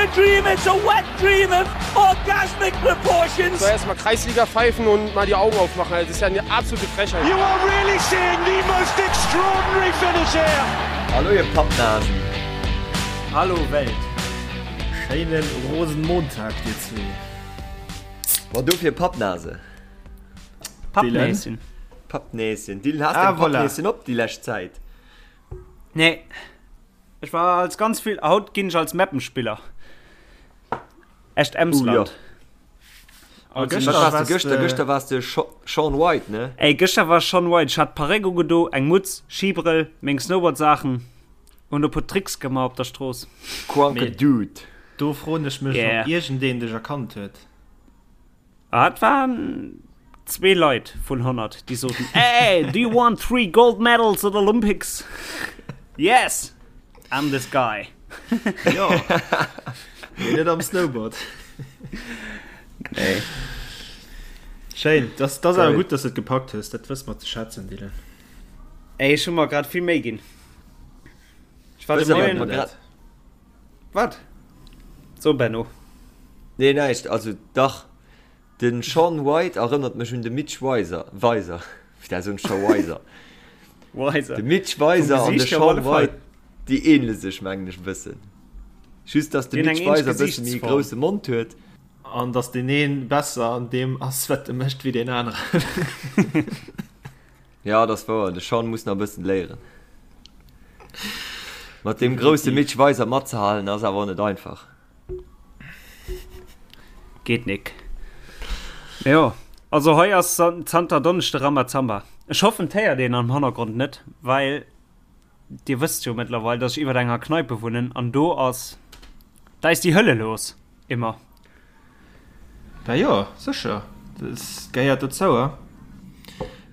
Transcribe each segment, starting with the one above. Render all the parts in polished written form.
a dream, it's a wet dream of orgasmic proportions. So erstmal Kreisliga pfeifen und mal die Augen aufmachen. Also, das ist ja eine absolute Frechheit. You are really seeing the most extraordinary finish here. Hallo ihr Pappnasen. Hallo Welt. Schéinen Rosenmontag dir zwee. Boah, dofir Pappnase. Pappnäschen. Pappnäschen. Dylan, has Ah, deng voilà. Pappnäschen op déi lescht Zäit? Nee. Ech war als ganz vill, haut ginn ech als Mappenspiller. Echt Emsland. Uh, ja. A Wat gëschter warst du warst gëschter? de Gëschter warst de Shaun White, ne? Ey, gëschter war Shaun White. Ech hat Parréck ugedo, eng Mutz, Skibrëll, meng Snowboardsaachen und e puer Tricks gemaach op der Strooss. Kranke Mee Dude. do froen ech mech, Yeah. ob iergendeen dech erkannt huet. Ah, et waren zwee Leit vun 100, déi soten, Hey, do you want three gold medals at Olympics? Yes, I'm this guy. Jo, mee net am Snowboard. Nee. Schéin, das, das awer Geil. gutt, dass du et gepackt hues. Dat wësse mer ze schätzen, Dylan. Ey, ech hu mer grad vill Méi ginn. Ech war de Wëss awer, Moien. wat mer grad. Wat? So, Benno. Nee, näischt. Also, dach. De Shaun White erënnert mech un de Mitch Weiser. Weiser. Putain, soen ech scho Weiser. Weiser. De Mitch Vum Weiser an de Gesiicht hier op Shaun alle Fall. White, déi ähnele sech, mengen ech, e bëssen. Just, dass de Déi hunn Mitch eng ähnlech Weiser e bësse méi e Gesichtsform. grousse Mond huet. An dass deen een besser an deem ass, wat e mécht, wéi deen aneren. Ja, dat ass wouer. De Shaun muss nach e bëssen léieren. Mat deem grousse Mitch Weiser matzehalen ass awer och net einfach. Geet nik. Mee jo, also hei ass zanter Donneschde Rambazamba. Ech hoffen 't héiert een am Hannergrond net, well dir wësst jo mëttlerweil, dass ech iwwert enger Kneipe wunnen an do ass, da ist die Hölle los, immer. Bah jo, sécher, dat gehéiert dozou. A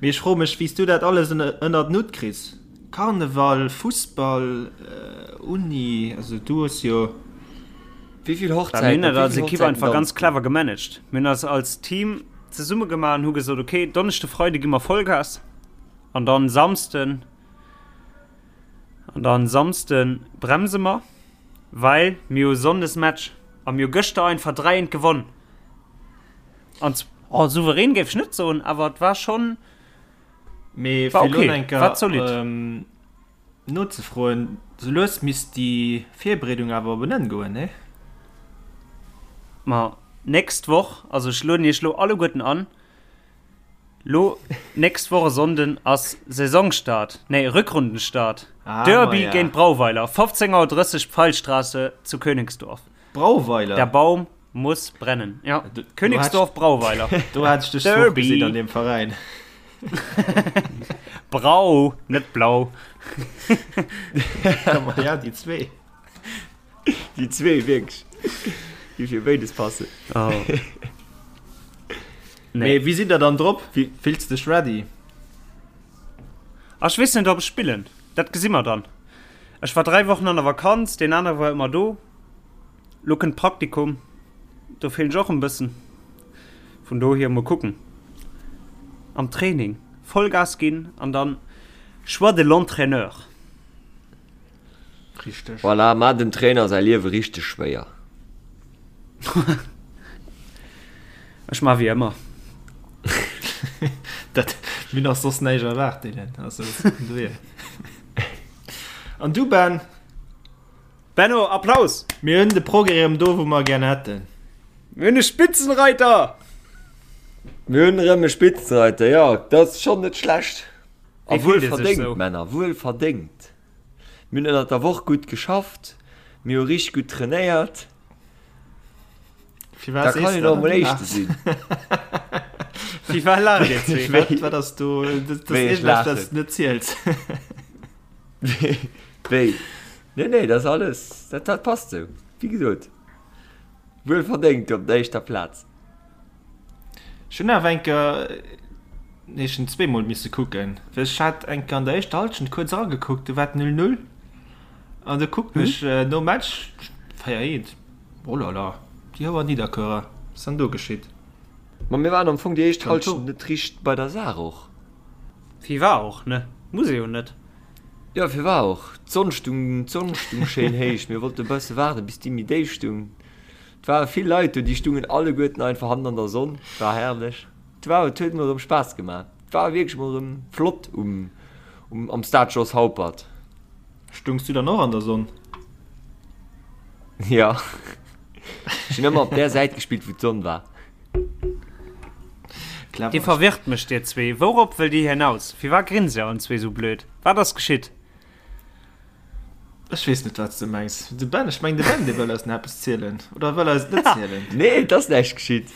mee ech froe mech, wéi s du dat alles ënnert den Hutt kriss? Karneval, Fussball, Uni, also du hues jo. Wéi vill Bah, mir Hochzäiten, hunn op dat wéi als vill Ekipp Hochzäiten einfach ganz danzt du? clever gemanagt. Mir hunn eis als Team zesumme gemaach an hu gesot, okay, Donneschde, Freide gi mer Vollgas an dann Samsden, an dann Samsde bremse mer. Well mir hu Sonndes Match a mir hu gëschter einfach 3 eent gewonn. An oh, souverän géif ech net soen, awer et war schonn, Mee war fir elo okay, eng war zolidd. Kéier nozefroen, sou lues misst déi Virbereedung awer op en Enn goen, nee? Ma nächst Woch, also ech lueden iech lo alleguerten an, Lo nächst Woch e Sonnden ass Saisonstart, nee Rückrundenstart, Ah, Derby maja. géint Brauweiler, 15.30 Auer Pfeilstraße zu Königsdorf. Brauweiler? Der Baum muss brennen. Ja, Do, Königsdorf, Brauweiler. do hat ech dech zwou Derby. gesinn an dem Veräin. Brau, net blau. Ja, ma ja, déi zwee. Déi zwee wierklech, déi fir béides passen. Oh. Mee wéi sidd der dann drop? Wie- Fills dech ready? Ah, ech weess net, ob ech spillen. Dat gesi mer dann. Ech war 3 Wochen an der Vakanz, deen anere war ëmmer do. Lo kënnt Praktikum, do feelen ech och en bëssen. Vun dohier mol kucken. Am Training Vollgas ginn an dann Choix de l'entraîneur. Richteg. Voilà, maach dem Trainer säi Liewe richteg schwéier. Ech maa wéi ëmmer. Dat, mir hunn och soss näischt erwaart, Dylan. Also, vun dohier. An du, Ben? Benno, Applaus! Mir hunn de Progrès erëm do, wou mer e gär hätten. Mir hunn e Spitzenreiter! Mir hunn erëm e Spitzenreiter, jo, dat ass schonn net schlecht. A Wéi fillt wuel ee sech verdéngt, sou? Männer, wuel verdéngt. Mir hunn ënnert der Woch gutt geschafft, mir hu richteg gutt trainéiert. Firwat Da sees kann du een dat och an mol du Éischte laachs? sinn. Firwat laacht dir zwee? Wat, Wéi, wat ass do? Dat ass wéi ech iergendeppes, laachen. wat s du net ziels. Wéi? Nee, nee, dat ass alles, dat, dat passt sou. Wéi gesot, wuel verdéngt op der éischter Plaz. Ech hunn awer eng Kéier, nee ech hunn zweemol misse kucken, well ech hat eng Kéier an der éischter Hallschent kuerz eragekuckt, do war et 0, 0 an du kucken ech nom Match 4, 1, oh la la, déi Houer Nidderkuerer, wat ass dann do geschitt? Ma mir waren am Fong déi éischt Dann Hallschent net richteg bei der Saach och. Firwar och, ne? Muss ee jo net. Jo, firwar och? D'Sonn stung, d'Sonn stung schéin héich, mir wollte e bësse waarden, bis déi méi déif stung. Et ware vill Leit do, déi stungen alleguerten einfach hannen an der Sonn. Et war herrlech. Et war, et huet mol erëm Spaass gemaach. Et war wierklech mol erëm flott um, um, am Stade Jos Haupert. Stungs du dann och an der Sonn? Ja. Ech hunn ëmmer op där Säit gespillt, wou d'Sonn war. Clever. Dir verwirrt mech, dir zwee. Wourop wëllt dir hinaus? Firwat grinst dir allen zwee sou blöd? Wat ass geschitt? Ech weess net, wat s de mengs. De Ben, ech meng de Ben, dee wëll eis nach eppes zielen. Oder wëll eis et net zielen? Nee, et ass näischt geschitt.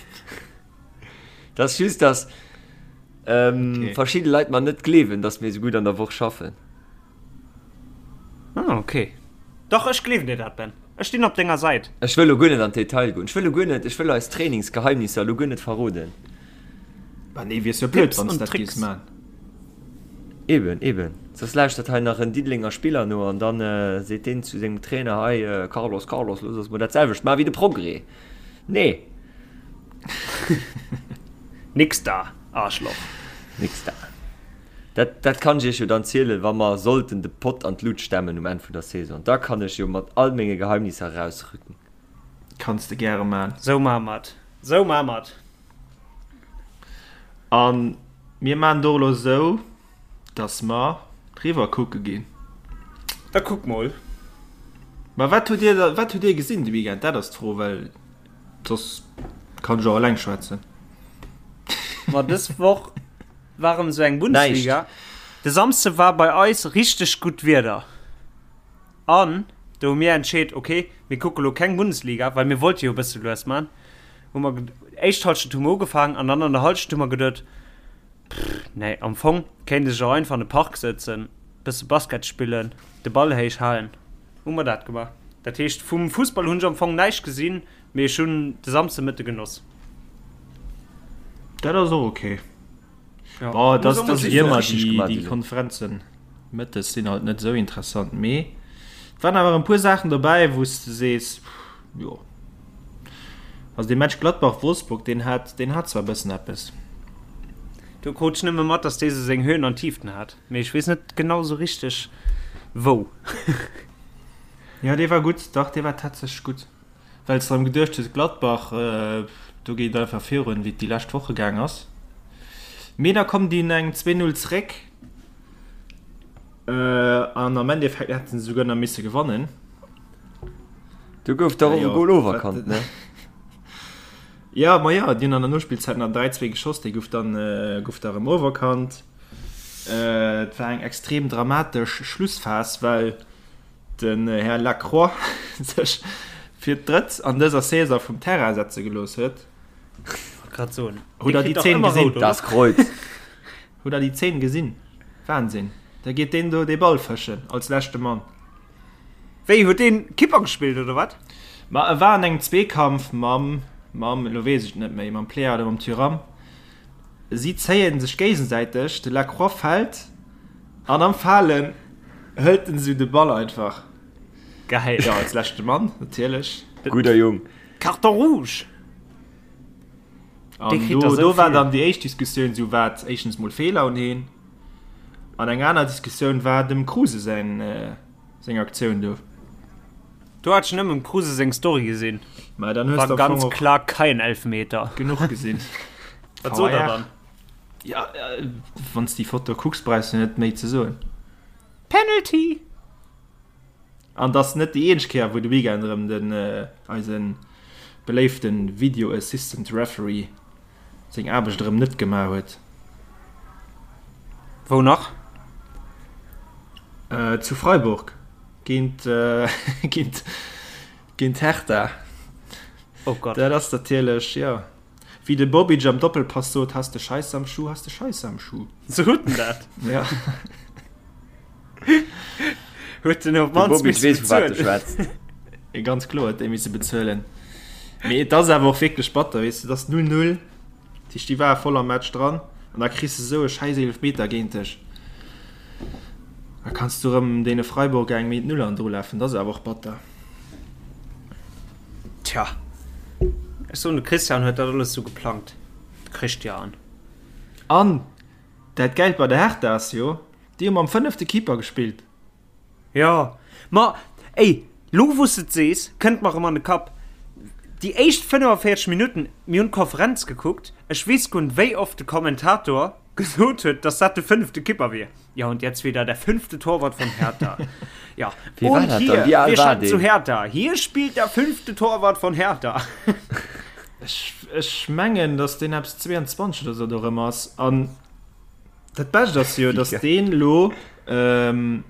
Et ass just, dass ähm, okay. verschidde Leit mer net gleewen, dass mir esou gutt an der Woch schaffen. Ah, okay. Dach, ech gleewen dir dat, Ben. Ech stinn op denger Säit. Ech wëll lo guer net an d'Detail goen. Ech wëll lo guer net, ech wëll eis Trainingsgeheimnisser lo guer net verroden. Bah nee, wiers jo blöd, wann s dat géifs man. Eben, eben. Soss lauschtert hei nach en Diddelenger Spiller no an dann seet deen zu sengem Trainer, Hei Carlos, Carlos, looss eis mol dat selwecht man wéi de Progrès. Nee. Nix da, Arschloch. Nix da. Dat, dat kann ech iech jo dann zielen, wa mer sollten de Pott an d'Lut stemmen um Enn vun der Saison. Da kann ech jo mat all menge Geheimnisser erausrücken. Kanns de gäre man. Sou maa mer et. Sou maa mer et. A mir maachen et och elo esou, dass mer riwwer kucke ginn. Da kuck mol. Ma wat hutt Dir da, wat hutt Dir gesinn de Weekend? Dat ass d'Fro, well soss kann ech och eleng schwätzen. Ma dës Woch war erëm esou eng Bundesliga. De Samsde war bei eis richteg gutt Wieder. An do hu mir entscheet, ok, mir kucke lo keng Bundesliga, well mir wollte jo e bësse lues man. Hu mer éischt Halschent hu mer ugefaangen an dann an der Halschent hu mer geduet, pff, nee, am Fong kéint ech och einfach an de Park sëtzen, bësse Basket spillen, de Ball héich halen. Hu mer dat gemaach. Dat heescht, vum Fussball hunn ech am Fong näischt gesinn, mee ech hunn de Samsdemëtte genoss. Dat ass och ok. Ja. Boah, das, das ist immer die, die Konferenzen mëttes sinn halt net sou interessant mee et waren awer en puer Saachen dobäi wou s de sees jo also dee Match Gladbach Wolfsburg deen hat deen hat zwar e bëssen eppes. Do krut ech nëmme mat dass dee sou seng Höhen an Tieften hat mee ech weess net genau sou richteg wou. Jo dee war gutt, dach dee war tatsächlech gutt. Well s de erëm geduecht hues, Gladbach, do geet et einfach virun, wéi et déi lescht Woche gaang ass. Mee da kommen déi un engem 2, 0 zeréck an am Endeffekt hätte se souguer nach misse gewannen. Do gouf dach och e Gol oferkannt, ne? Jo, ma jo, déi hunn an der Nospillzäit nach 3, 2 geschoss, dee gouf dann, gouf da erëm oferkannt. Et war eng extrem dramatesch Schlussphas, well den Här Lacroix sech fir d'drëtt an dëser Saison vum Terrain setze gelooss huet. Grad soen. Hutt der déi Zeen gesinn? Das Kreuz. Hutt der déi Zeen gesinn? Wahnsinn. Da geet deen do dee Ball fëschen als leschte Mann. Wéi, huet deen Kipper gespillt oder wat? Ma e war an engem Zweekampf mam, mam, elo weess ech et net méi, mam Pléa oder mam Thuram. Si zéien sech géigesäiteg, de Lacroix fält an am Falen hëlt en esou de Ball einfach. Geil. Jo, als leschte Mann natierlech. Gudder Jung. Carton rouge! An do, do war dann déi éischt Diskussioun esou, war et éischtens mol Feeler un heen an eng aner Diskussioun war dem Kruse säin, seng Aktioun do. Do hat ech nëmmen dem Kruse seng Story gesinn. Mä dann hues de am Fong och. War ganz klar kein Elfmeter. Genuch gesinn. Wat sot der dann? Ja, wann s déi Foto kucks, brauchs du net méi ze soen. Penalty! An et ass net déi eenzeg Kéier, wou de Weekend erëm den eise beléifte Video Assistant Referee seng Aarbecht erëm net gemaach huet. Wou nach? Zu Freiburg géint géint géint Hertha. Oh Gott. Dat ass natierlech, jo. Wéi de Bobic am Doppelpass sot, Has de Scheisse am Schuh, has de Scheisse am Schuh. Sou huet en dat. Ja. Huet en op De d'mannst Bobic misse weess, vu wat e bezuelen. schwätzt. Ganz kloer huet dee misse bezuelen. Mee et ass awer och wierklech batter, weess de, et ass 0, 0, dat heescht, déi ware voll am Match dran an da kriss de esou e schäiss Eelefmeter géint dech. Da kanns du erëm deene Freiburger eng méi d'Null an drulafen, dat ass awer och batter. Tja, ech soen, de Christian huet dat alles sou geplangt, de Christian. An dat Gäilt bei der Hertha ass jo, déi hu mam fënnefte Keeper gespillt. Jo, ma ey, lo wou s de et sees, kënnt mer erëm an de Kapp. Déi éischt 45 Minutten, mir hunn d'Konferenz gekuckt, ech weess guer net wéi oft de Kommentator gesot huet, dass dat de fënnefte Kipper wier. Ja und jetzt wieder der fünfte Torwart von Hertha. Ja, Wie war und dat hier, dann? Wie al wir war schalten zu deen? Hertha. Hier spielt der fünfte Torwart von Hertha. Ech, ech mengen, dass deen eppes 22 oder sou do erëm ass. An dat Bescht ass jo, dass deen elo ähm,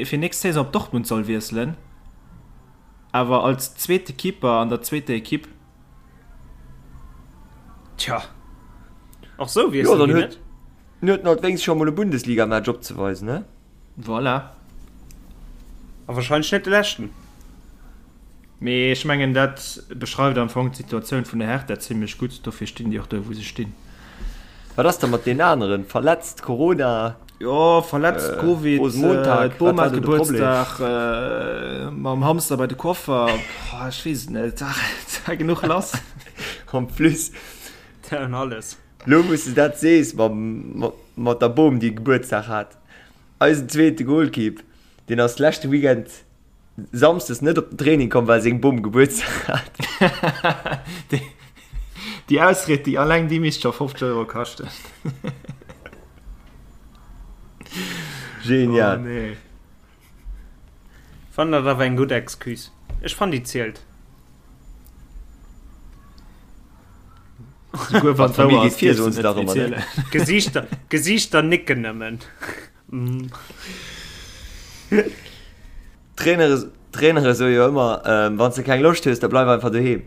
fir nächst Saison op Dortmund soll wiesselen, awer als zweete Keeper an der zweeter Ekipp. Tja, och sou Jo, wiesselen dann déi huet net. en huet en halt wéinst scho mol e Bundesligamatch opzeweisen, ne? Voilà. A wahrscheinlech net de leschten. Mee ech mengen, dat beschreift am Fong d'Situatioun vun der Hertha zimlech gutt. Dofir stinn déi och do, wou se stinn. Wat ass da mat deenen aneren? Verletzt, Corona? Jo, verletzt, Covid, Rosenmontag, d'Bom wat war hat do de Problem? Gebuertsdag, mam Hamster bei de Coiffer, ech weess et net, et war genuch lass. En plus, An alles. lo wou s de dat sees, mam, mat der Bom, déi Gebuertsdag hat, eisen zweete Golkipp, deen ass leschte Weekend Samsdes net op den Training komm, well seng Bom Gebuertsdag hat. Déi Ausried, déi alleng déi misst scho 50 Euro kaschten. Genial. Oh nee. Fannen dat awer eng gutt Excuse. Ech fannen déi zielt. Souguer wann D'Famill d'wouer geet ass, vir, dierfs soen de se net dach ëmmer, ne? erzielen. Gesiichter, Gesiichter nicken nëmmen. Trainere, Trainere soe jo ëmmer, Wann s de keng Loscht hues, da bleif einfach doheem.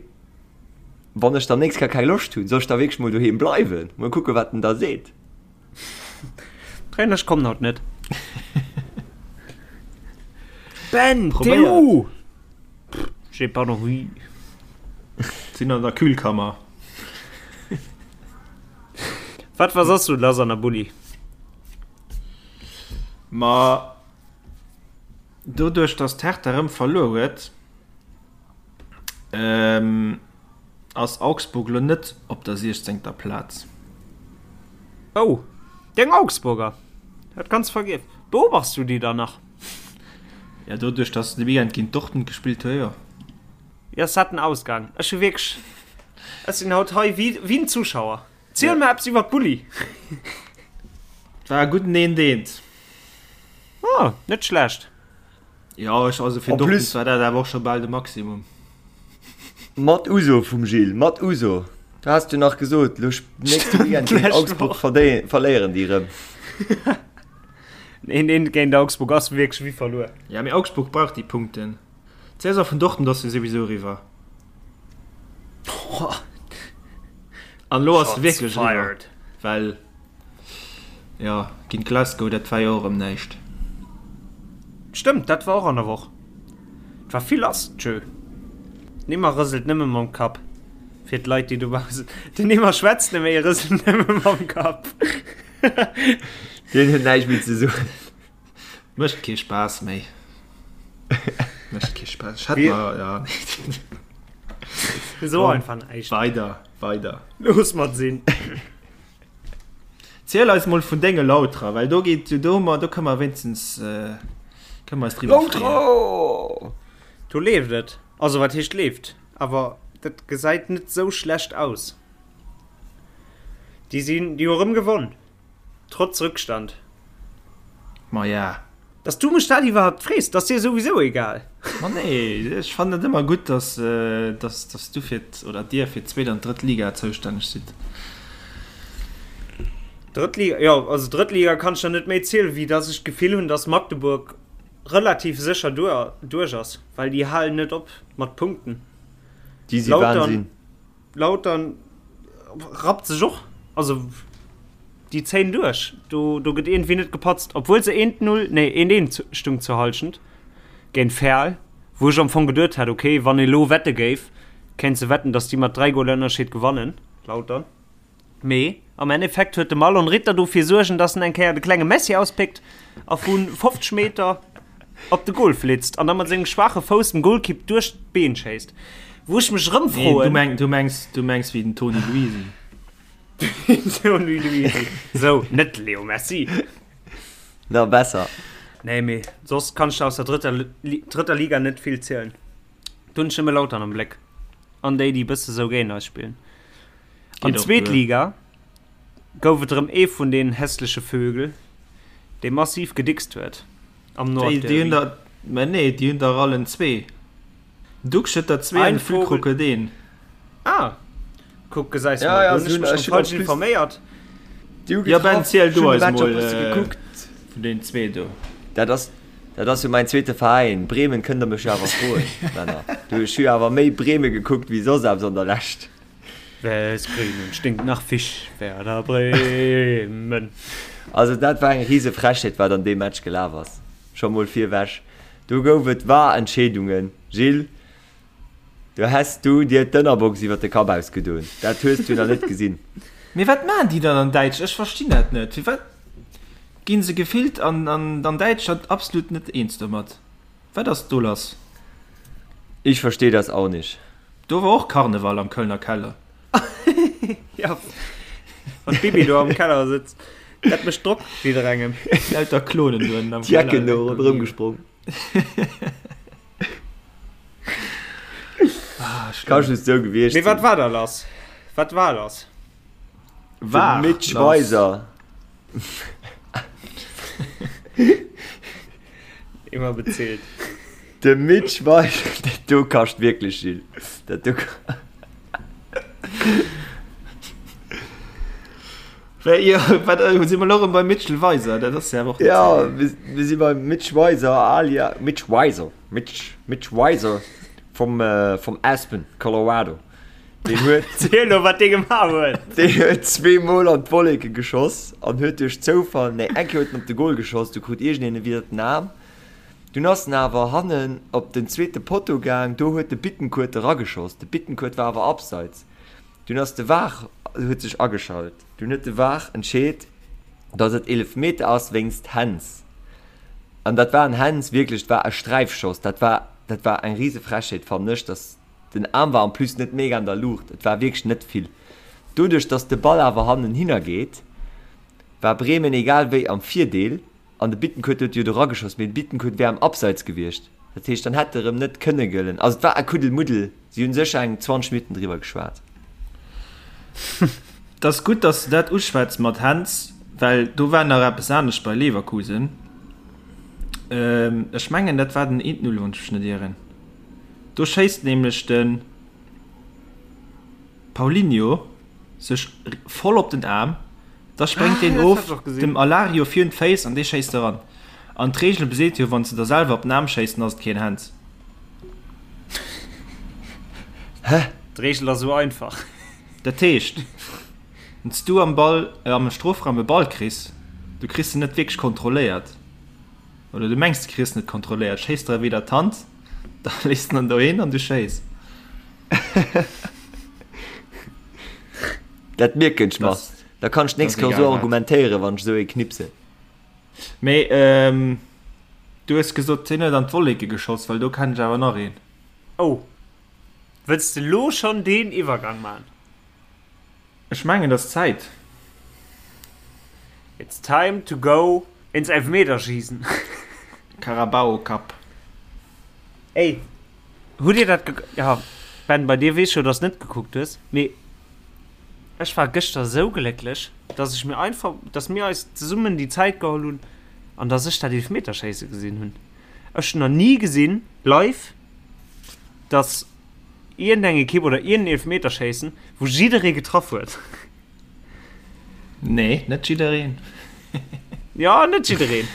Wann ech dann nächst Kéier keng Loscht hunn, soll ech da wierklech mol doheem bleiwen? Mol kucke wat en da seet. Trainer, ech kommen haut net. Ben, t'es Probéiert. où? J'ai pas envie. Sinn an der Kühlkammer. Wat war soss sou lass an der Bulli? Ma doduerch dass d'Hertha erëm verluer huet, ass Augsburg elo net op der siechzéngter Plaz. Oh, deng Augsburger! Hat ganz vergiess. Beobachts du déi dann nach? Ja, doduerch dass se de Weekend géint Dortmund gespillt hu, jo. Jo, ass dat den Ausgang? Ech hu wierklech, ech sinn haut hei wéi en Zuschauer. Ziel mer eppes iwwer d'Bulli. Et war e gudden eent eent. Oh, net schlecht. Jo, ech, also fir En Dortmund plus war dat awer och scho bal de Maximum. Mat Uso vum Gilles, mat Uso. Du has jo nach gesot, lo nächste Weekend géint D'lescht Augsburg Woch. verdéi verléieren déi erëm. Een eent géint Augsburg ass wierklech wéi verluer. Ja, mee Augsburg brauch déi Punkten. D'Saison vun Dortmund ass jo souwisou eriwwer. An elo ass se wierklech eriwwer, well jo géint Glasgow, dat war jo och erëm näischt. Stëmmt, dat war och an der Woch. Et war vill lass, tjö. Nimmer rëselt nëmme mam Kapp. Fir d'Leit, déi dobaussen. Den Nimmer schwätzt net méi, e rëselt nëmme mam Kapp. Deen huet näischt méi ze soen. Mécht kee Spaass méi. Mécht kee Spaass. Ech hätt mer, ja. So einfach näischt. Weider, weider. Looss mat sinn. Ziel eis mol vun denge Lauterer, well do geet do hu mer, do kënne mer wéinstens kënne mer eis driwwer freeën. Lautrer! Do leeft et. Also wat heescht leeft, awer dat gesäit net sou schlecht aus. Déi sinn, déi hu erëm gewonn. Trotz Rückstand. Maja. Dass du mech dat iwwerhaupt frees, dat ass dir souwisou egal. Ma nee, ech fannen et ëmmer gutt, dass, dass, dass du fir d', oder dir fir d'zweet an d'drëtt Liga zoustänneg sidd. Drëtt Liga, jo, also drëtt Liga kann ech der net méi zielen, wéi dass ech d'Gefill hunn, dass Magdeburg relativ sécher duer, duerch ass, well déi halen net op mat Punkten. Déi si Wahnsinn. Lautern rappt sech och, also déi zéien duerch, do, do gëtt iergendwéi net gepatzt, obwuel se eent Null, nee eent eent stung zur Halschent géint Verl, wou ech am Fong geduet hat, okay, wann ee lo wette géif, kéints de wetten, datt déi mat 3 Goler Ënnerscheed gewannen, Lautern. Mee am Endeffekt huet de Marlon Ritter dofir suergen, datt en eng Kéier de klenge Messi auspickt a vu 50 Meter op de Goal flitzt an da mat sengem schwaache Fouss dem Golkipp duerch d'Been schéisst. Wou ech mech erëm Nee, du froen. meng, du mengs, du mengs wéi den Toni Luisi. Toni Luisi. Sou, net de Leo Messi. Na, besser. Nee, mee soss kann ech der aus der drëtter, drëtter Liga net vill zielen. Do hunn ech nëmme Lautern am Bléck. An déi, déi bësse sou géint eis spillen. An zweet Liga gouf et erëm ee vun den hässleche Vögel, dee massiv gedickst huet am Nordderby. Déi hunn der, mä nee, déi hunn der allen zwee. Duxch huet der zwee an de Füllkrug huet een. Ah, kuck, gesäis mol, do hunn ech mech erëm falsch informéiert. Jo Ben, ziel du eis mol vun deenen zwee do. Dat ass, dat ass jo mäin zweete Veräin. Bremen kënnt der mech jo awer froen, Männer. Du, ech hu jo awer méi Breme gekuckt wéi soss eppes an der Lescht. Wes Bremen stinkt nach Fisch, Werder Bremen. Also dat war eng rise Frechheet wat an deem Match gelaf ass. Scho mol virwech, do gouf et VAR-Entscheedungen, Gilles. Do häss du dir d'Ënnerbox iwwer de Kapp ausgedoen. Dat hues du nach net gesinn. Mee wat maachen déi dann an Däitsch? Ech verstinn dat net. Firwat ginn se gefillt an an Däitschland absolut net eens domat? Wat ass do lass? Ich verstehe das auch nicht. Do war och Karneval am Kölner Keller. Ja, wann d'Bibi do am Keller sëtzt, dat mécht Drock jidderengem. Lauter Klonen do ënnen am Keller. D'Jecken do ronderëm gesprong. Ah, Ka just sou gewiescht Mee wat war da lass? Wat war lass? War De Mitch Weiser. Immer bezilt. De Mitch Weiser, dat do kascht wierklech, Gilles. Dat do. Wéi, jo, wat, äh, si mer lo erëm beim Mitchell Weiser, dat ass ja awer och net Ja, mir, mir si beim Mitch Weiser alia Mitch Weiser, Mitch, Mitch Weiser vom, äh, vom Aspen, Colorado. Deen huet, Ziel lo, wat dee gemaach huet. deen huet zweemol an d'Wolleke geschoss an huet duerch Zoufall, nee, eng Kéier huet en op de Goal geschoss, du krut iergendeen e widder den Aarm. Dunn ass en awer hannen op den zweete Potto gaang, do huet de Bittencourt erageschoss. De Bittencourt war awer abseits. Dunn ass de var huet sech ageschalt. Dunn huet de var entscheet, datt et Eelefmeter ass wéinst Händs. An dat war en Händs, wierklech, et war e Sträifschoss. Dat war, dat war eng rise Frechheet, fannen ech, datt den Aarm war en plus net mega an der Luucht, et war wierklech net vill. Doduerch, datt de Ball awer hannenhinner geet, war Bremen egal wéi am Virdeel. An de Bittencourt huet jo do rageschoss, mee de Bittencourt wär am Abseits gewiescht. Dat heescht, dann hätt e rëm net kënne gëllen. Also et war e Kuddelmuddel. Si hunn sécher eng 20 Minutten driwwer geschwat. Et ass gutt, dass de dat uschwätz mat Händs, well do war nach eppes anescht bei Leverkusen. Ech mengen, dat war den 1-0, wann ech mech net ieren. Do schéisst nämlech de Paulinho sech voll op den Aarm. Da spréngt deen of dem Alario virun d'Féiss an dee schéisst eran. An d'Reegel beseet jo, wann s de der selwer op den Aarm schéiss, dann ass et keen Hands. Hä? D'Reegel ass esou einfach. Dat heescht, wann s du am Ball, am Strofraum e Ball kriss, du kriss en net wierklech kontrolléiert, oder du mengs du kriss en net kontrolléiert, schéiss der e widder d'Hand, da léiss de en dohin an du schéiss. Dat mierken ech mer. Da kann ech d'nächst Kéier esou argumentéieren, wann ech esou ee knipsen. Mee du hues gesot, hien huet an d'Wolleke geschoss, well do kennen ech awer nach een. Oh, wëlls de lo schonn deen Iwwergang man? Ech mengen, et ass Zäit. It's time to go ins Elfmeterschießen. Carabao Cup. Ey, hutt dir dat ge-, ja, Ben, bei dir weess ech jo, dass de net gekuckt hues, mee ech war gëschter esou glécklech, dass ech mir einfach, dass mir eis zesummen déi Zäit geholl hunn an dass ech dat Eelefmeterschéisse gesinn hunn. Ech hunn nach ni gesinn, live, dass iergendeng Ekipp oder iergendeen Eelefmeterschéissen, wou jidderee getraff huet. Nee, net jiddereen. Ja, net jiddereen.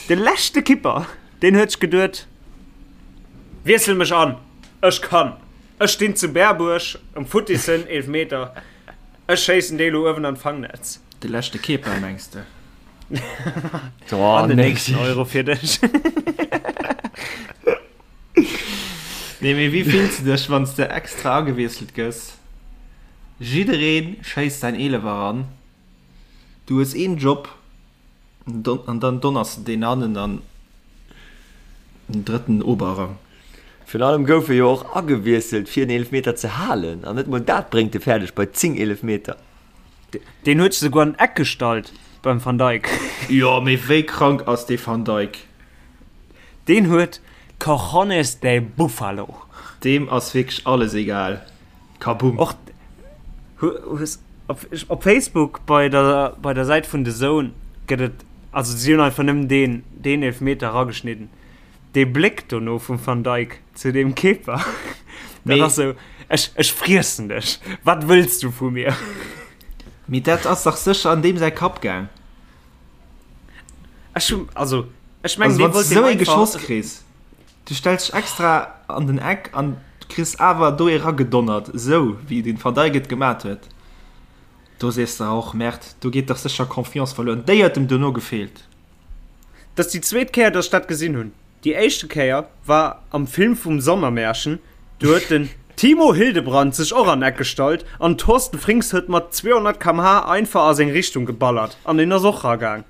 De leschte Kipper, deen huet sech geduet, Wiessel mech an, ech kann. Ech stinn zu Berbuerg um futtissen Eelefmeter, ech schéissen dee lo uewen an d'Fangnetz. De leschte Keeper, mengs de? An den nächsten Euro fir dech. Nee, mee wéi fills de dech, wann s de extra agewiesselt gëss? Jidderee schéisst säin Eelefer eran, du hues een Job an dann donners de deen hannen an den drëtten Oberrang. Virun allem gouf e jo och agewiesselt fir en Eelefmeter ze halen an net mol dat bréngt e fäerdeg bei 10 Eelefmeter. Deen huet sech souguer an d'Eck gestallt beim Van Dijk. Jo, mee wéi krank ass dee Van Dijk? Deen huet Cojones de Buffalo. Deem ass wierklech alles egal. Kaboom. Och hues op, op Facebook bei der, bei der Säit vun The Zone gëtt et, also si hunn einfach nëmmen deen, deen Eelfmeter erageschnidden. Dee Bléck dono vum Van Dijk zu deem Keeper, dat ass sou, ech, ech friessen dech, wat wëlls du vu mir? Mee dat ass dach sécher an deem säi Kapp gaang. Ech hunn, also ech mengen, Also dee wann s wollt de deem sou ee einfach. geschoss kriss, du stells dech extra an den Eck an kriss awer do ee ragedonnert, esou wéi den Van Dijk et gemat huet, do sees de och, Merde, do geet dach sécher Confiance verluer. An déi huet em dono gefeelt. Dat ass déi zweet Kéier, dass ech dat gesinn hunn. Déi éischte Kéier war am Film vum Sommermärchen, do huet den Timo Hildebrand sech och an Eck gestallt an Thorsten Frings huet mat 200 km/h einfach a seng Richtung geballert an deen ass och ragaang.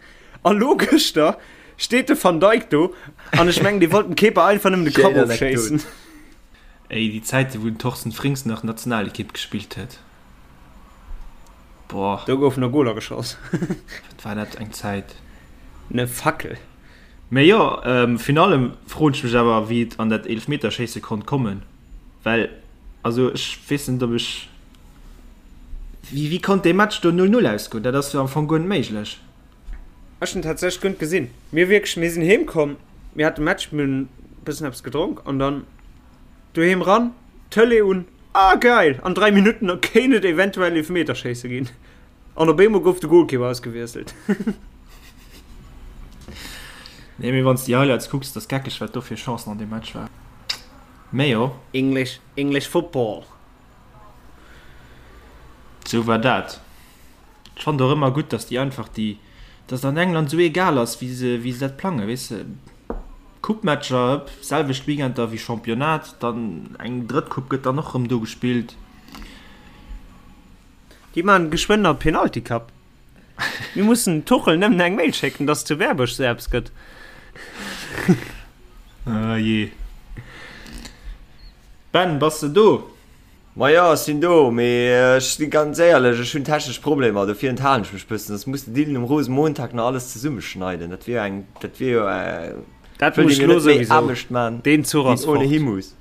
A lo gëschter steet de Van Dijk do an ech mengen dee wollt dem Keeper einfach nëmmen de Kapp Schéin ofschéissen. Anekdot. Ey, déi Zäite wou den Thorsten Frings nach Nationalekipp gespillt huet, boah. Do goufen nach Goler geschoss. Wat war dat eng Zäit. Ne Fackel. Mee jo, virun allem froen ech mech awer, wéi et an dat Eelefmeterschéisse konnt kommen, well, also ech weess net, ob ech, wéi, wéi konnt dee Match do 0, 0 ausgoen? Dat ass jo am Fong guer net méiglech. Ech hunn tatsächlech guer net gesinn. Mir wierklech, mir sinn heem komm, mir hate Match, mir hunn e bëssen eppes gedronk an dann doheem ran, Tëlee un, ah geil, an 3 Minutten kéint et eventuell Eelefmeterschéisse ginn. An op eemol gouf de Goalkeeper ausgewiesselt. Nee, mee wann s déi Highlights kucks, dat ass geckeg, wat do fir Chancen an deem Match war. Mee jo. English, English football. Sou war dat. Ech fannen et och ëmmer gutt, dass déi einfach déi, dass et an England sou egal ass, wéi se, wéi se dat plangen, weess de. Coupe-Matcher, selwecht Weekender wéi Championnat, dann eng drëtt Coupe gëtt dann och rëm do gespillt. Déi maan geschwënn nach Penalty Cup. Mir mussen dem Tuchel nëmmen eng Mail schécken, dass zu Berbuerg sou eppes gëtt. Ah jee. Ben, bass de do? Ma jo, ech sinn do, mee ech si ganz éierlech, ech hunn technesch Problemer, dofir enthalen ech mech bëssen. Soss muss de Dylan um Rosenmontag nach alles zesummeschneiden. Dat wier jo eng, dat wier jo, Dat wëllt muss ee mir elo net méi souwisou. Aarbecht man, Deen Zuch wéi ass ohne fort. hi muss.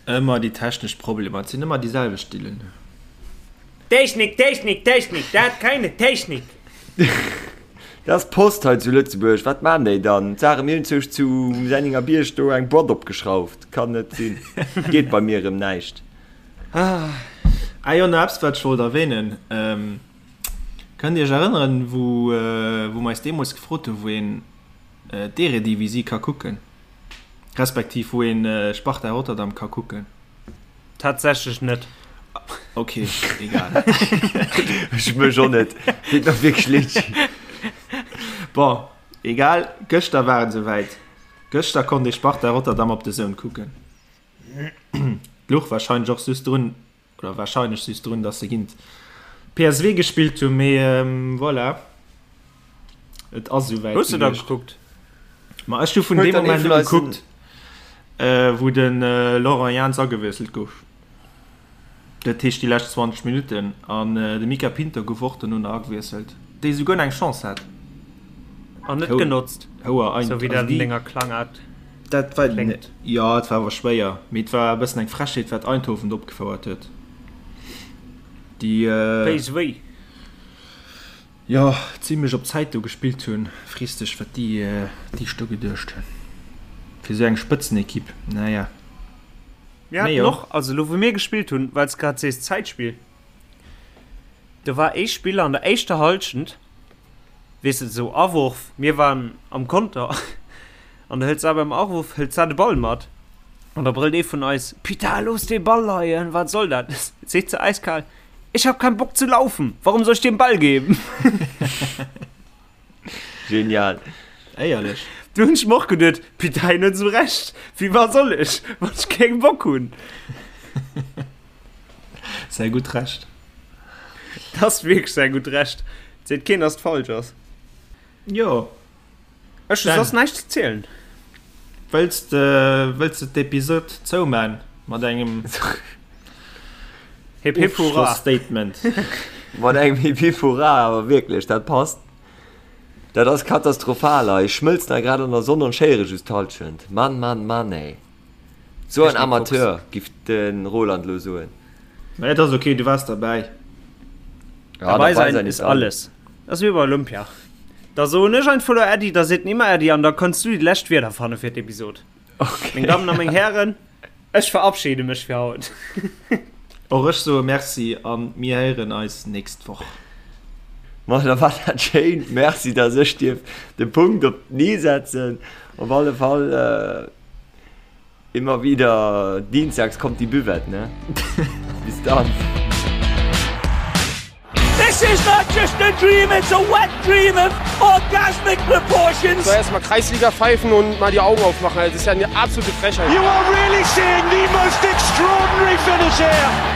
Ëmmer déi technesch Problemer, et sinn ëmmer déi selwecht, Dylan. Technik, Technik, Technik, dat keine Technik! Dat ass d'Post hei zu Lëtzebuerg, wat maan déi dann? D'Sare mir hunn zu zu Senninger Bierg do eng Boîte opgeschrauft, kann net sinn, geet bei mir erëm näischt. Ah jo, nach eppes wat ech wollt erwähnen, kënnt dir iech erënneren wou wou mer eis deemools gefrot hunn wou een d'Eredivisie ka kucken, respektiv wou een Sparta Rotterdam ka kucken? Tatsächlech net. Ok, egal. Ech mech och net. Deet mer wierklech leed. Bon, egal, gëschter war et esouwäit. Gëschter konnt ee Sparta Rotterdam op DAZN kucken. Luch warscheinlech och just drun, oder warscheinlech just drun, dass se géint PSV gespillt hunn, mee voilà, et ass esouwäit Hues de da gewiescht. gekuckt? Ma ech hu vun Huet deem dann ee Moment vun u eisen. gekuckt, wou de Laurent Jans agewiesselt gouf. Dat heescht déi lescht 20 Minutten. An de Mica Pinto gouf och dono nach agewiesselt, dee souguer nach eng Chance hat. An net genotzt, sou wéi dat an denger Klangaart Dat war, kléngt. jo, et war awer schwéier, mee et war e bëssen eng Frechheet, wat Eindhoven do opgefouert huet. Déi. PSV. Jo, zimlech op Zäit do gespillt hunn. Frees dech wat déi déi do geduecht hunn fir esou eng Spëtzenequipe. Naja. Mir haten och, also elo wou mir gespillt hunn, well s grad sees Zäitspill, do war ee Spiller an der éischter Hallschent, weess de, esou Awurf, mir waren am Konter an da hëlt sa beim Awurf hëlt sa de Ball mat an da brëllt ee vun eis, Putain, looss dee Ball leien, wat soll dat? Seet se äiskal, Ich hab keinen Bock zu laufen. Warum soll ich dir den Ball geben? Genial. Éierlech. Du hunn ech mer och geduet, Putain, hien huet esou Recht. Wéi wat soll ech, wann ech keng Bock hunn? Säi gutt Recht. Dat ass wierklech säi gutt Recht. Et seet keen, dass et falsch ass. Jo. Ech hu soss näischt ze zielen. Wëlls de wëlls de d'Episod zouman mat engem Hip hip hurra Ofschloss-Statement? Mat engem Hip hip hurra, awer wierklech, dat passt. Dat ass katastrophal hei. Ech schmëlzen hei grad an der Sonn an schéiere just d'Hallschent. Mann, Mann, Mann, ey. Sou en Amateur, giff de Roland lo soen. Mä et ass ok, du waars derbäi. Ja, Dabei sein ist alles. Dat ass wéi bei Olympia. Da soen ech einfach elo Äddi, da seet en immer Äddi an da kanns du déi lescht Wierder fanne fir d'Episod. Okay. Meng Dammen a meng Hären, ech verabschede mech fir haut. Och ech soe Merci a mir héieren eis nächst Woch. Ma da war dat schéin. Merci, dass ech dierf de Punkt op den i setzen. Op alle Fall. Immer wieder dienstags kommt die Buvette, ne? Bis dann. This is not just a dream, it's a wet dream of orgasmic proportions. Soll erstmal Kreisliga pfeifen und mal die Augen aufmachen. Das ist ja eine absolute Frechheit. You are really seeing the most extraordinary finish here.